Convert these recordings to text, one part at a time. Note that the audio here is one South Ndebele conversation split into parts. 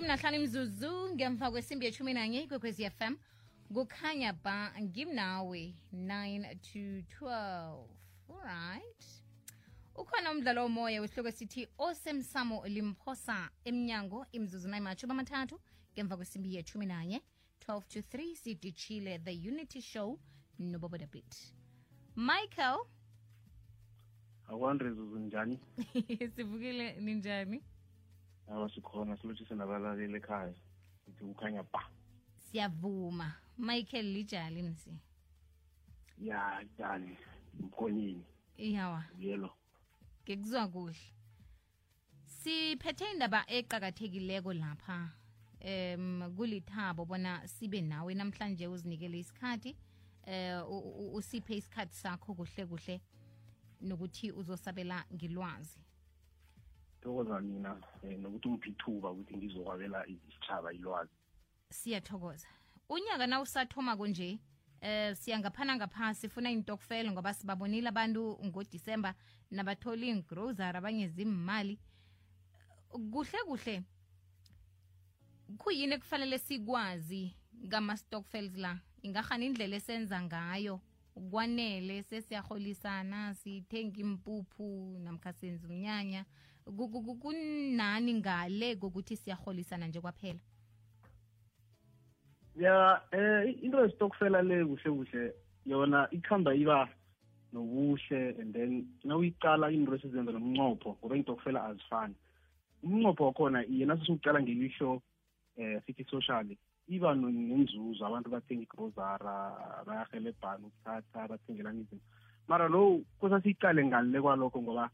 15 imzuzu ngemva kwesimbi ye-11 ikwekwezi FM kukhanya ba ngimnawe 9 to 12. Alright, ukhona umdlalo womoya wesihloko sithi osemsamo limphosa emnyango imzuzu nayimathuba amathathu ngemva kwesimbi ye-11 12 to 3 sidishile the Unity Show noBobo the Beat. Michael, akwanrezuzu njani? sivukile ninjani? Sikhona silotshise nabalaleli ekhaya sithi ukhanya ba. Siyavuma. Michael lijali nisi. Ya njani mkhonyini? Iyawa. Yelo. Ngekuzwa kuhle. Siphethe indaba eqhakathekileko lapha. Kulithabo bona sibe nawe namhlanje uzinikele isikhathi usiphe isikhathi sakho kuhle kuhle nokuthi uzosabela ngilwazi. Thokoza mina nokuthi umphithuba ukuthi ngizokwabela isitshaba ilwazi. Siyathokoza. Unyaka na usathoma konje siyangaphana ngaphasi sifuna intokfela ngoba sibabonile abantu ngoDisemba nabatholi ingrocery abanye zimali kuhle kuhle. Kuyini kufanele sikwazi ngama stockfields la ingahana indlela esenza ngayo ukwanele sesiyaholisana sithenga impuphu namkha senza umnyanya kunani ngale kokuthi siyaholisana nje kwaphela. Ya into yestokfela le kuhle kuhle yona ikhamba iba nobuhle and then nawuyiqala into esizenza nomnqopho ngoba intokfela azifani. Umnqopho wakhona yena sisuqala ngelisho sithi socially iba nenzuzo abantu bathenga igrozara bayahelebhana ukuthatha bathengelana izinto mara lo kusasiqale ngale kwalokho ngoba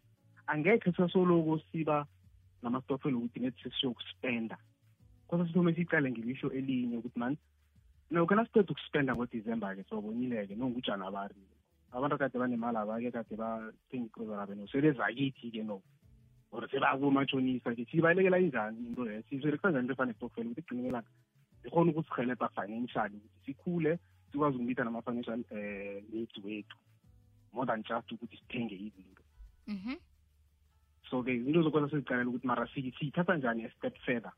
angekhe sasoloku siba namastokfela ukuthi nethi siyokuspenda kusasithome siqale ngelisho elinye ukuthi man no kana siqeda ukuspenda ngoDisemba ke sobonileke nongujana bari abantu kade banemali abake kade bathenga igrozara beno sebezakithi ke no or sebakumatshonisa ke sibalekela injani into le sizorekwenza into efana nestokfela ukuthi igcinelana ikhona ukusihelebha financially ukuthi sikhule sikwazi ukumitha nama-financial needs wethu more than just ukuthi sithenge izinto. So ke izinto zokwenza sizicalela ukuthi mara siyithatha njani a-step further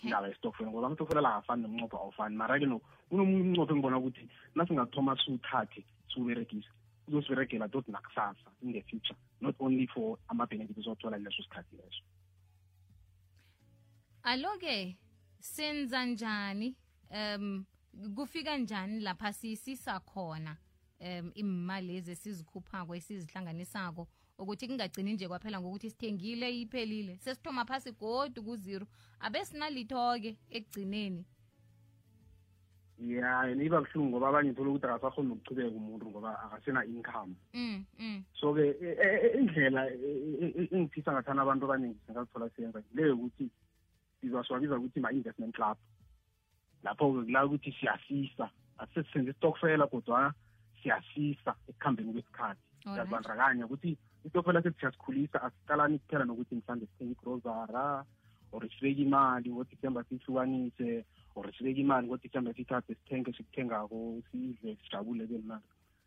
indaba yestokfela ngoba amastokfela la afani nomnqopho awufani mara ke unomunye umnqopho engibona ukuthi nasingathoma siwuthathe siwuberegise uzosiberegela tot nakusasa in the future not only for ama-benefits esizothola leso sikhathi leso. Alo-ke senza njani kufika njani lapha sisisa khona imali lezi sizikhuphako esizihlanganisako ukuthi kungagcini nje kwaphela ngokuthi sithengile iphelile sesithoma phasi godu ku-0 abesinalitho-ke ekugcineni. Ya niba buhlungu ngoba abanye thola ukuthi akasakhona ukuchubeka umuntu ngoba akasena income. So ke indlela engifisa ngathana abantu abaningi singazithola siyenza leyo ukuthi sizaswabiza ukuthi ma-investment club lapho kula ukuthi siyasisa asisenze istokfela kodwa siyasisa ekuhambeni kwesikhathi siyazibandakanya ukuthi istokfela sethi siyasikhulisa asiqalani kuphela nokuthi mhlawumbe sithenge igrozara or sibeke imali ngoDisemba sihlukanise or sibeke imali ngoDisemba sithathe sithenge sikuthengako sidle sijabule bemnandi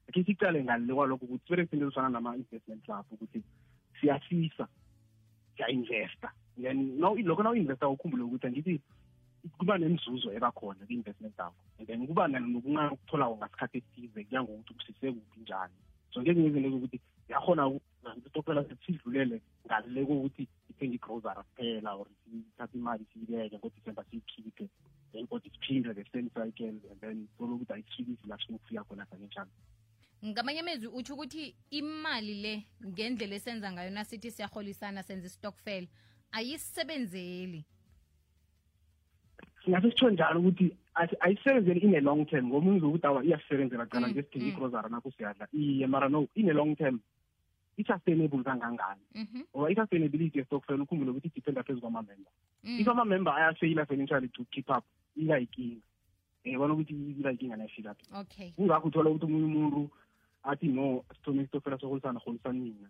akhe siqale ngale kwalokho ukuthi siberegise into ezifana nama-investment club ukuthi siyasisa siya-investa then lokho nawu-investa ukhumbule ukuthi angithi kuba nenzuzo ebakhona kwi-investment yakho and then kuba nokuncane ukutholako ngasikhathi esithize kuya ngokuthi kusise kuphi njani. So ngezinye izinto zokuthi yakhona istokfela sidlulele ngale kokuthi ithenge igrozara kuphela or sithathe imali siyibeke ngoDisemba siyikhiphe then kodwa siphinde the same cycle and then solo ukuthi ayisifikisi la sifuna ukufika khona financial. Ngamanye amezwi uthi ukuthi imali le ngendlela esenza ngayo nasithi siyaholisana senza istokfela ayisebenzeli. Singase sitsho njalo ukuthi ayisebenzeli in a long term ngoba uzokuthi awa iyasebenzela cala nje sidinga igrozara nakho siyadla iye mara no in a long term i-sustainable kangangani ngoba i-sustainability yestokfela ukhumbule ukuthi idependa phezu kwama-member. If ama-member ayafeyila financially to keep up ilayinkinga bona ukuthi ilayinkinga nayifika phi. Kungakho uthola ukuthi omunye umuntu athi no sithome istokfela soholisana mina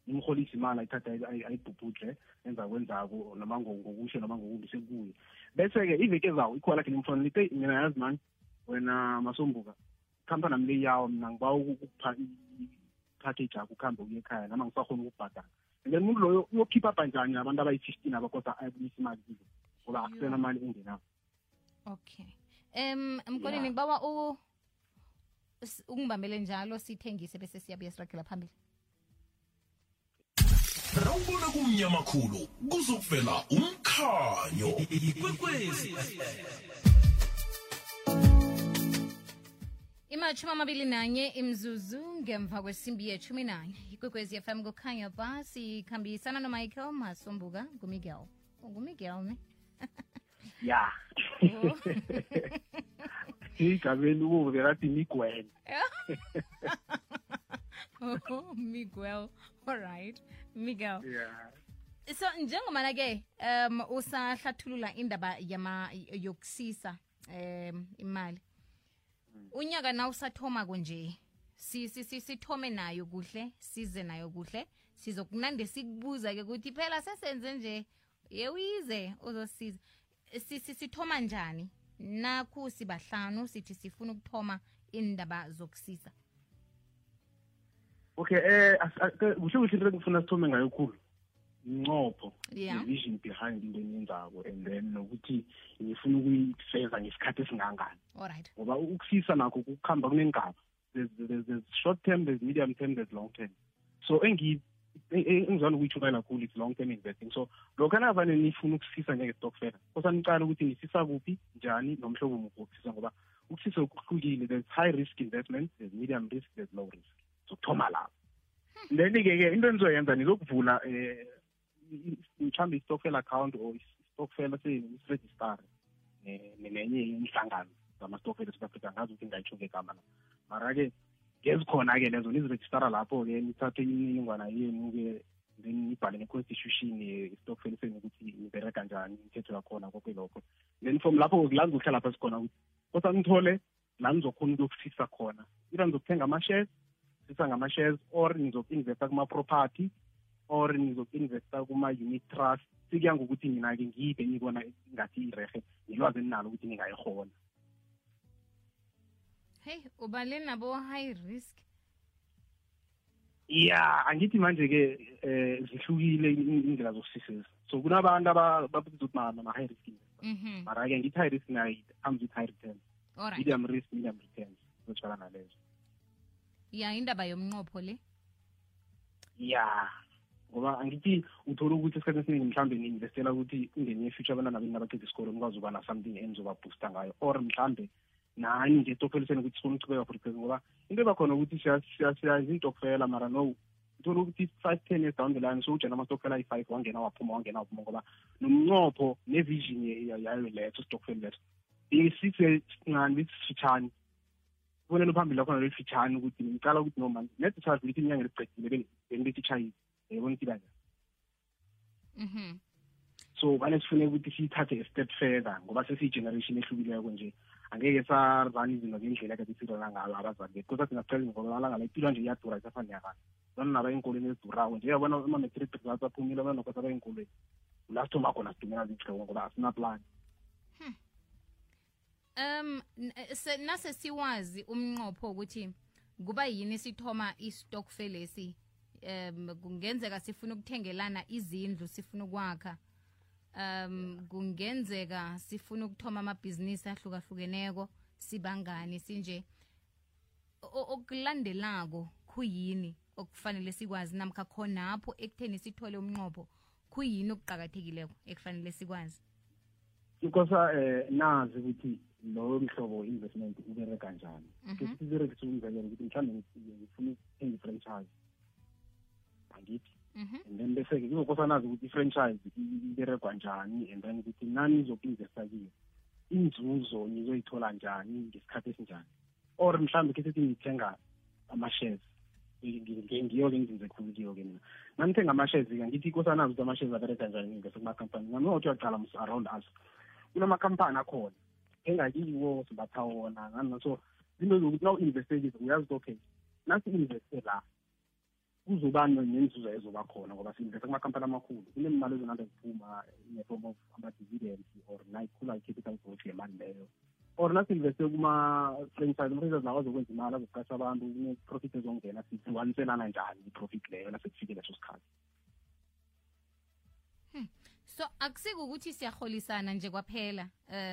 imholisa imali ayithatha ayibhubhudle enza kwenzako noma ngokusho noma ngokumbi sekuye bese-ke iveke zawo ikhona lakhe nimfona lithi mina yazi mani wena Masombuka khampani nami le yawo mina ngiba ukupha i-package yakho ukuhambe uye ekhaya nama ngisakhona ukubhadala and then umuntu loyo uyokhipha up njani abantu abayi-15 abakosa ayibuyisa imali kizo ngoba akusena mali engenayo. Okay. Mkoleni ngibawa ungibambele njalo sithengise bese siyabuya siragela phambili. Rawubona kumnyama khulu kuzokuvela umkhanyo ikwekwezi. Imachuma 21 imzuzu ngemva kwesimbi ye-11 ikwekwezi FM kukhanya ba sikhambisana noMichael Masombuka nguMiguel. Ngumiguel ne? Ya. Igabeni uve rathi Miguel. Oh, Miguel. All right. Miguel. Yeah. So njengomana ke usahlathulula indaba yokusisa imali. Unyaka na usathoma konje. Sithome nayo kuhle, size nayo kuhle. Sizokunande sikubuza ke ukuthi phela sesenze nje yewize uzosiza. Sithoma njani? Nakhu sibahlanu sithi sifuna ukuthoma indaba zokusisa. Okay, kuhle into engifuna sithome ngayo khulu. Incopho, Yeah. vision behind into enenzako and then nokuthi ngifuna ukuyifeza ngesikhathi esingangani. All right. Ngoba ukusisa nakho kukhamba kunengaba. There's short term, there's medium term, there's long term. So engizwana ukuyithukela kakhulu it's long term investing. So lokho anavane nifuna ukusisa njenge-stokvel. Kosanicala ukuthi nisisa kuphi, njani, nomhlobo muphi wokusisa ngoba ukusisa kuhlukile. There's high risk investments, there's medium risk, there's low risk. So thoma lapho. Then-ke into enizoyenza nizokuvula mhlawumbe i-stokvel account or i-stokvel seyiregister nenye inhlangano zama-stokvel eSouth Africa ngazi ukuthi ngayitsho ngegama la. Mara-ke ngezikhona-ke lezo nizirejistara lapho-ke nithathe imininingwana yenu-ke then nibhale ne-constitution ye-stokvel senu ukuthi nibereka njani imithetho yakhona konke lokho. Then from lapho la nizohlala lapha sikhona ukuthi kodwa nithole la nizokhona ukuyokusisa khona. Ira nizokuthenga ama-shares, sisa ngama-shares or nizoku-investa kuma-property or nizoku-investa kuma-unit trust. Sikuya ngokuthi mina-ke ngiyiphi engibona ngathi irehe nilwazi eninalo ukuthi ningayihona. Hey, ubale nabo high risk. Yeah, angithi manje-ke zihlukile indlela zokusisisa. So kunabantu ababiza ukuthi ma-high risk investors. Mara-ke ngithi high risk nayo comes with high returns. All right. Medium risk, medium returns. Zotshwala nalezo. Yeah, indaba yomnqopho le. Yeah. Ngoba angithi uthola ukuthi esikhathini esiningi mhlawumbe ni-investela ukuthi ungene e-future abantwana beni nabaqeda isikole nikwazi ukuba na-something enizoba-boosta ngayo or mhlawumbe nani nje estokfeliseni ukuthi sifuna ukuchubeka for because ngoba into ebakhona ukuthi siyayenza intokfela mara no uthola ukuthi 5-10 years down the line so ujena amastokfela ayi-5 wangena waphuma ngoba nomnqopho ne-vision yayo letho stokfeli letho isincane bisifitshane kubonela phambili lakhona lelifitshane ukuthi ngicala ukuthi noma nethi charge lithi inyanga eliqedile bengilithi chayile yabona ukuthi kanjani. So bane sifune ukuthi siyithathe a step further ngoba sesiyi-generation ehlukileko nje angeke sarani izinto ngendlela kade sirana ngayo abazali bethu kodwa singacela ngoba amalanga la impilo nje iyadura isafani yakani bona naba ey'nkolweni ezidurayo nje yabona ama-matric results aphumile abana nokwasa bay'nkolweni la sithoma khona sidumela zihloko ngoba asinaplan. Nase siwazi umnqopho ukuthi kuba yini sithoma i-stokvel lesi kungenzeka sifuna ukuthengelana izindlu sifuna ukwakha kungenzeka sifuna ukuthoma amabhizinisi ahlukahlukeneko sibangani sinje okulandelako kuyini okufanele sikwazi namkha khonapho ekutheni sithole umnqopho kuyini okuqakathekileko ekufanele sikwazi. Because nazi ukuthi lo mhlobo investment ubereka njani. Ukuthi siberekise umzekelo ukuthi mhlawumbe ngifuna ukuthenga i-franchise angithi and then bese-ke kuzokosa nazi ukuthi i-franchise iberekwa njani and then ukuthi nani nizoku-investa kiyo inzuzo nizoyithola njani ngesikhathi esinjani or mhlawumbe ke sithi ngithenga ama-shares ngiyo-ke ngizinze khulu kiyo-ke mina nanithenga ama-shares-ke ngithi ikosa nazi ukuthi ama-shares abereka njani ngivese kuma-company nami othi uyaqala around us kunamakhampani akhona engakiwo sibatha wona ngani so zinto zokuthi na u-investe kizo uyazi ukuthi okay nasi-investe la kuzoba nenzuzo ezoba khona ngoba si-investe kumakhampani amakhulu kunemali ezonanda ziphuma in-form of ama-dividends or nayikhula i-capital growth yemali leyo or nasi-investe kuma-franchise ama-franchise lawo azokwenza imali azoqasha abantu kune-profit ezongena sihluganiselana njani i-profit leyo nasekufikile leso sikhathi. So akusiko ukuthi siyaholisana nje kwaphela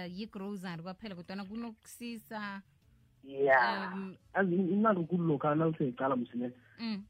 yi-grocery kwaphela kodwa kunokusisa azi imali nkulu lokha nawuseyicala msine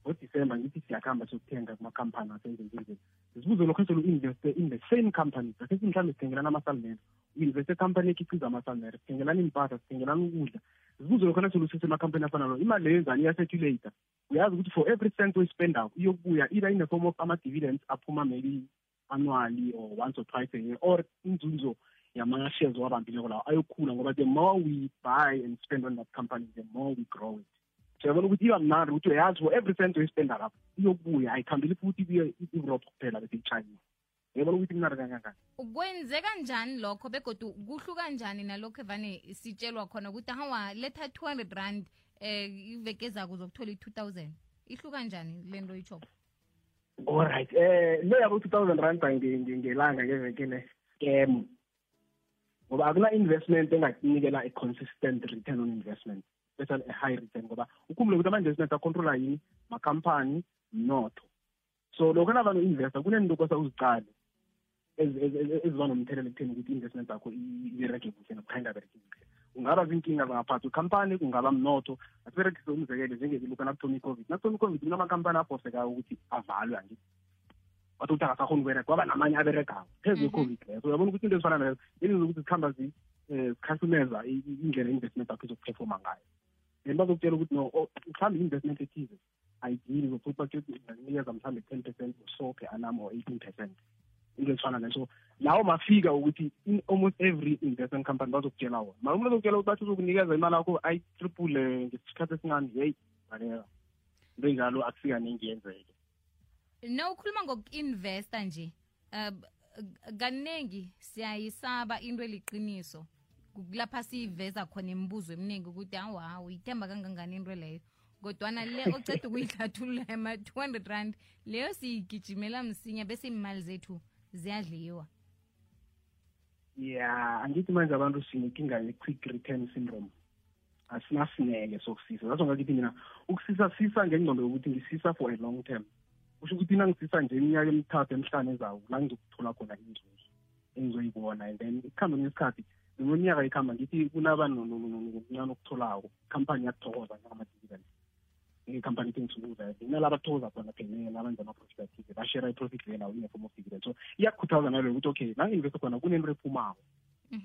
ngoDisemba ngithi siyakhamba siyokuthenga kumakhampani asenzenzenzeni sibuze lokho selu-investe in the same company asithi mhlawumbe sithengelana amasalimere u-investe company ekhiqiza amasalimere sithengelana impahla sithengelana ukudla sibuze lokho naselusise emakhampani afana nayo imali leyo yenzani iyacirculate uyazi ukuthi for every cent oyispendayo iyokubuya either in the form of ama-dividends aphuma maybe annually or once or twice a year or inzunzo yama-shares owabambileko lawo ayokhula ngoba the more we buy and spend on that company the more we grow it siyabona ukuthi iba mnandi ukuthi uyazi for every cent oyispenda lapho iyokubuya ayikhambeli futhi ibuye i-Europe kuphela bese i-China uyabona ukuthi mnandi kangangani kwenzeka njani lokho begodu kuhluka njani nalokho evane sitshelwa khona ukuthi hawa letha 200 rand iveke ezako uzokuthola i-2000 ihluka njani le nto itshoko alright le yabo 2000 rand ngelanga ngevekele scam ngoba akuna-investment engakunikela a-consistent return on investment especially a high return ngoba ukhumbule ukuthi ama-investment acontrola yini makhampani mnotho so lokho navane u-investa kunento kosa uzicale eziba nomthelela ekutheni ukuthi i-investment zakho ibereke kuhle nokukha ingabereki kuhle kungaba zinkinga zangaphathi ikhampani kungaba mnotho asiberekise umzekelo njengelokhu nakuthoma i-COVID nakuthoma i-COVID kunama-khampani aphosekayo ukuthi avalwe angithi wathi ukuthi akasakhona ukubereka kwaba namanye aberegayo phezu kwe-COVID leyo so uyabona ukuthi into ezifana nayo yenza ukuthi zikhamba zikhasumeza indlela i-investment yakho izokuphefoma ngayo then bazokutshela ukuthi no mhlawumbe i-investment ethize ayidili zokuthi bakunikeza mhlawumbe 10% so per annum or 18% into ezifana nayo so lawo mafika ukuthi in almost every investment company bazokutshela wona mara umuntu azokutshela ukuthi bathi uzokunikeza imali yakho ayi-triple ngesikhathi esincane yeyi baleka into enjalo akusika ningi yenzeke no ukhuluma ngoku-investa nje kaningi siyayisaba into eliqiniso kulapha siyiveza khona imibuzo eminingi ukuthi hawa uyithemba kangangani into leyo kodwana le oceda ukuyihlathulula ema-200 rand leyo siyigijimela msinya bese imali zethu ziyadliwa angithi manje abantu sinenkinga ye-quick return syndrome asinasineke sokusisa zaso ngakithi mina ukusisa ngengqondo yokuthi ngisisa for a long term kusho ukuthi nangisisa nje iminyaka emithathu emihlanu ezayo la ngizokuthola khona inzuzo engizoyibona and then ikuhambe ngesikhathi neminyaka ikhamba ngithi kunaba nokuncane okutholako ikhampani yathokoza njengama-dividend ikhampani ithengisukuza inalaba athokoza khona phela nabenza ama-profit athize bashare i-profit leyo nawo in the form of dividend so iyakukhuthaza nalo ukuthi okay nangi-investe khona kunento ephumako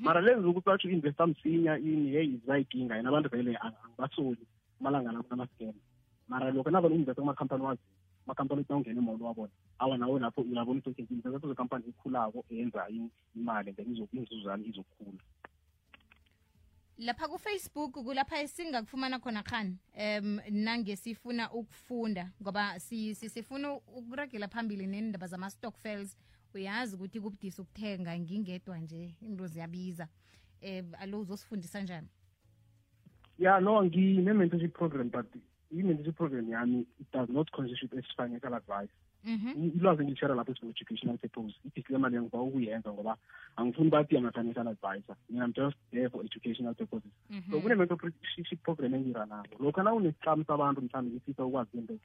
mara lezi zokuthi batsho u-investa msinya ini heyi zayidinga yena abantu vele angibasoli amalanga la kunama-scam mara lokho navane u-investe kumakhampani wazi amakhampani ukuthi nawungena emolo wabona awa nawe lapho uyabona ukuthi okay investe kuzekhampani ekhulako eyenza imali then inzuzane izokhula lapha ku-Facebook kulapha esingakufumana khona khani nange sifuna ukufunda ngoba sifuna ukuragela phambili nendaba zama-stockfels uyazi ukuthi kubudisi ukuthenga ngingedwa nje into ziyabiza alo uzosifundisa njani no ngine-mentorship program but i-mentorship program yami it does not constitute as financial advice ilwazi ngilishare lapho for educational purpose i-disclaimer leyo ngiba ukuyenza ngoba angifuni bathi ama-financial advisor mina I'm just there for educational purposes so kune-mentorship program engiranako lokho na unesicamo sabantu mhlawumbe ngifisa ukwazi into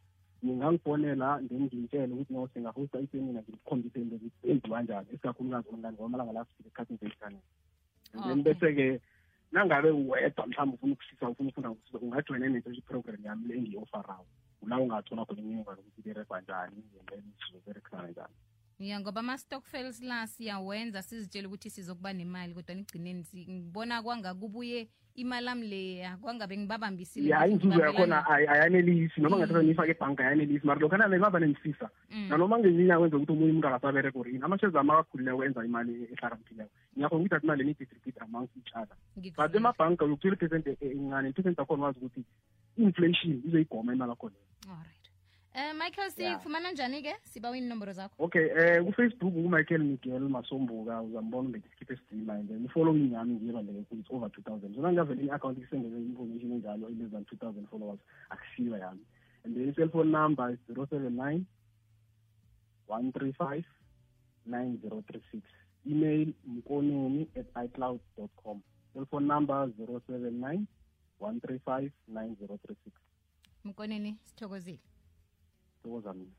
ngingangifonela then ngimtshele ukuthi no singahosta isemina ngikukhombise into enziwa njani esikakhulukazi online ngoba amalanga la sifike esikhathini se-internet and then bese-ke nangabe wedwa mhlawumbe ufuna ukusisa ufuna ufunda ngokusisa ungajoyina i-mentorship program yami le engiyi-ofarayo ula ungathola khona imininingwane ukuthi iberekwa njani and then sizoberekisana njani ngoba ama-stockfels la siyawenza sizitshela ukuthi sizokuba nemali kodwa nigcineni ngibona kwangakubuye imali ami leya kwangabe ngibabambisile inzuzo yakhona ayanelisi noma ngathatha ngiyifake ebhanka ayanelisi mara lokho nangaba nengisisa nanoma ngezinye kwenza ukuthi omunye umuntu akasabereka or yini ama-shares ami akakhulileko enza imali ehlakaniphileko ngiyakhona ukuthi athi imali ni-distribute amongst each other but emabhanka uyokuthola i-percent encane i-percent yakhona wazi ukuthi i-inflation izoyigoma imali yakho leyo. Alright. Michael, sifumana njani-ke sibawa inomboro zakho? Okay, ku-Facebook ku-Michael Miguel Masombuka uzambona ngesikiphe esidima and then i-following yami ngiyebaleke it's over 2000 so nangavele i-account isendele information enjalo less than 2000 followers akusiyo yami and then i-cellphone number is 079 135 9036 email mkoneni@icloud.com cellphone number 079 135 9036 Mkoneni sithokozile. Thokoza mina.